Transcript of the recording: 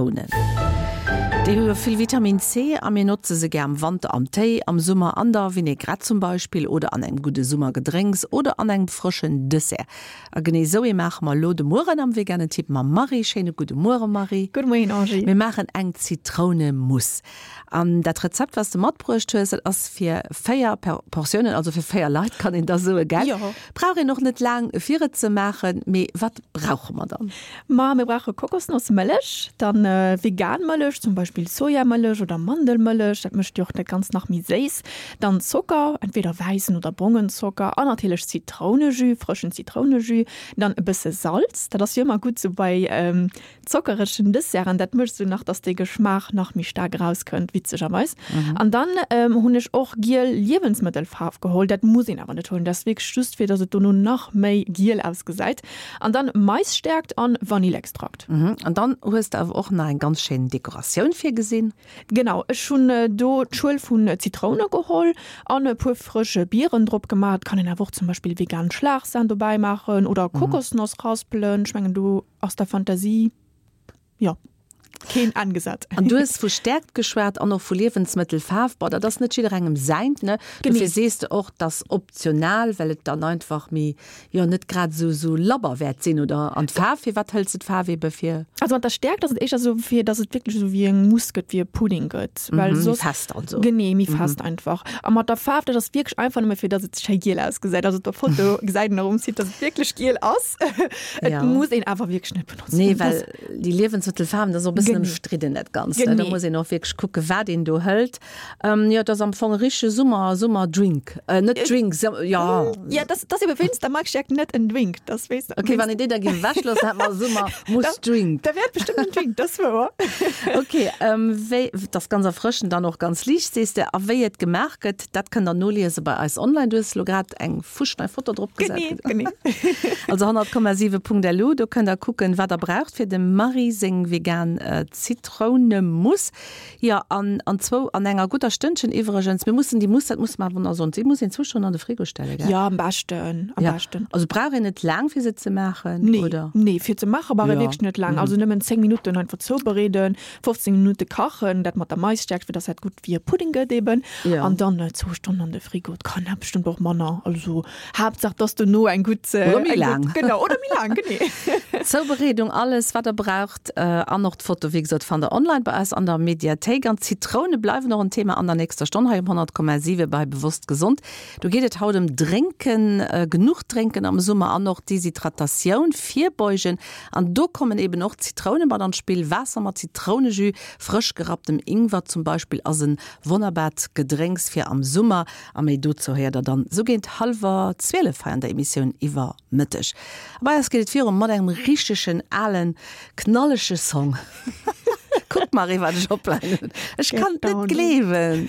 Zitrounen. Déi hu jo vill Vitamin C a mir notze se gär am Wanter am Téi, am Summer an der Vinaigrette zum Beispill oder an engem gudde Summergedrénks oder an engem frëschen Dessert. A genee esou ee maache mer elo de Mueren am Veganen Tipp mam Marie. Schéine gudde Muere Marie. Gudde Moien Angie. Mir maachen eng Zitrounemousse. An dat Rezept wat s de matbruecht hues, dat ass fir 4 Portiounen, also fir 4 Leit kann een da soe gell? Jo. Brauch een och net laang fir et ze maachen. Mee wat brauche mer dann? Ma mir brauche Kokosnossmëllech, dann vegan Mëllech, zum Beispill Sojamëllech oder Mandelmëllech, dat mécht jo och dat Ganzt nach méi séiss. Dann Zocker, entweder wäissen oder brongen Zocker an natierlech Zitrounejus, frëschen Zitrounejus. Dann e bësse Salz, dat ass jo ëmmer gutt sou bei zockeregen Desserten, dat mécht sou nach, dass de Geschmaach nach méi staark erauskënnt, witzegerweis. An dann hunn ech och giel Liewensmëttelfaarf geholl, dat muss een awer net huelen, dat ass wierklech just fir dass et dono nach méi giel ausgesäit. An dann Maisstärkt an Vanillextrakt. An dann hues de awer och nach eng ganz schéin Dekoratioun virgesinn. Genau, ech hunn do d'Schuel vun Zitroune geholl an e puer frësch Bieren drop gemaach. Et kann een awer och zum Beispill vegan Schlagsahn dobäi maachen oder Kokosnoss raspelen. Ech mengen do ass der Fantasie, jo, keen Enn gesat. An du hues vu Stäerkt geschwat an och vu Liewensmëttelfaarf. Bon, dat ass net jidderengem säint, ne? Dofir sees de och, dass optional, well et dann einfach méi, jo, net grad esou, esou labber wäert sinn, oder? An d'Faarf, firwat hëls de d'Faarf ebe fir? Also mat der Stäerkt ass et éischter esou, fir dass et wierklech esou wéi eng Mousse gëtt, wéi e Pudding gëtt, well soss. Méi fest also. Genee, méi fest einfach. A mat der Faarf, dat ass wierklech einfach nëmme fir dass et schéi giel ausgesäit. Also op der Foto gesäit een och um Site, dass et wierklech giel ass. Et Ja. muss een awer wierklech net benotzen. Nee, well déi Liewensmëttelfaarwen, dat ass och e bëssen ëmstridden dat Ganzt, ne? Da muss een och wierklech kucke wat een do hëlt. Jo, et ass am Fong e richtege Summer, Summerdrink. Net Drink, jo. Ja, dat ass ebe wéinst der Maisstärkt net en Drink. Dat weess. Okay, wann een déi da géif ewechloossen, hätt mer e Summer-Mousse-Drink. Da wär et bestëmmt en Drink, dat ass wouer. Okay, wéi, et ass ganz erfrëschend an och ganz liicht, sees de. A wéi et gemaach gëtt, dat kënnt der noliese bei eis online. Du hues elo grad eng fuschnei Foto drop gesat. Genee, genee. Also 100,7.lu, do kënnt der kucken, wat der braucht fir dem Marie seng vegan Zitrounemousse. Jo, an an zwou, an enger gudder Stënnchen iwwregens. Mir mussen déi Mousse, dat musse mer awer nach soen, déi muss een zwou Stonnen an de Frigo stellen, gell? Jo, am beschten, am Ja, beschten. also brauch een net laang fir se ze maachen, Nee, oder? nee, fir ze maache brauch ee Jo. wierklech net laang. Also nëmmen 10 Minutten einfach zoubereeden, 15 Minutte kachen, dat mat der Maisstärkt, fir dass dat gutt wéi e Pudding gëtt eben. Ja. An dann zwou Stonnen an de Frigo. Et kann awer bestëmmt och manner. Also Haaptsaach, dass dono eng gutt. Oder méi laang. Genau, oder méi laang, genee. Zoubereedung, alles wat der braucht an och d'Foto, wéi gesot, fannt der online bei eis an der Mediathéik. An d'Zitroune bleiwen och en Thema an der nächster Stonn hei um 100,7 bei Bewosst Gesond. Do geet et haut ëm Drénken, genuch drénken am Summer an och Deshydratatioun virbeugen. An do kommen eben och d'Zitroune mat an d'Spill. Waasser mat Zitrounejus, frësch gerapptem Ingwer zum Beispill ass en wonnerbart Gedrénks fir am Summer. A méi dozou héiert der dann sou géint hallwer 12 hei an der Emissioun iwwer Mëtteg. A bei eis geet et viru mat engem richtegen alen, knallege Song. Kuck Marie wat ech opleien hunn. Ech kann et net gleewen.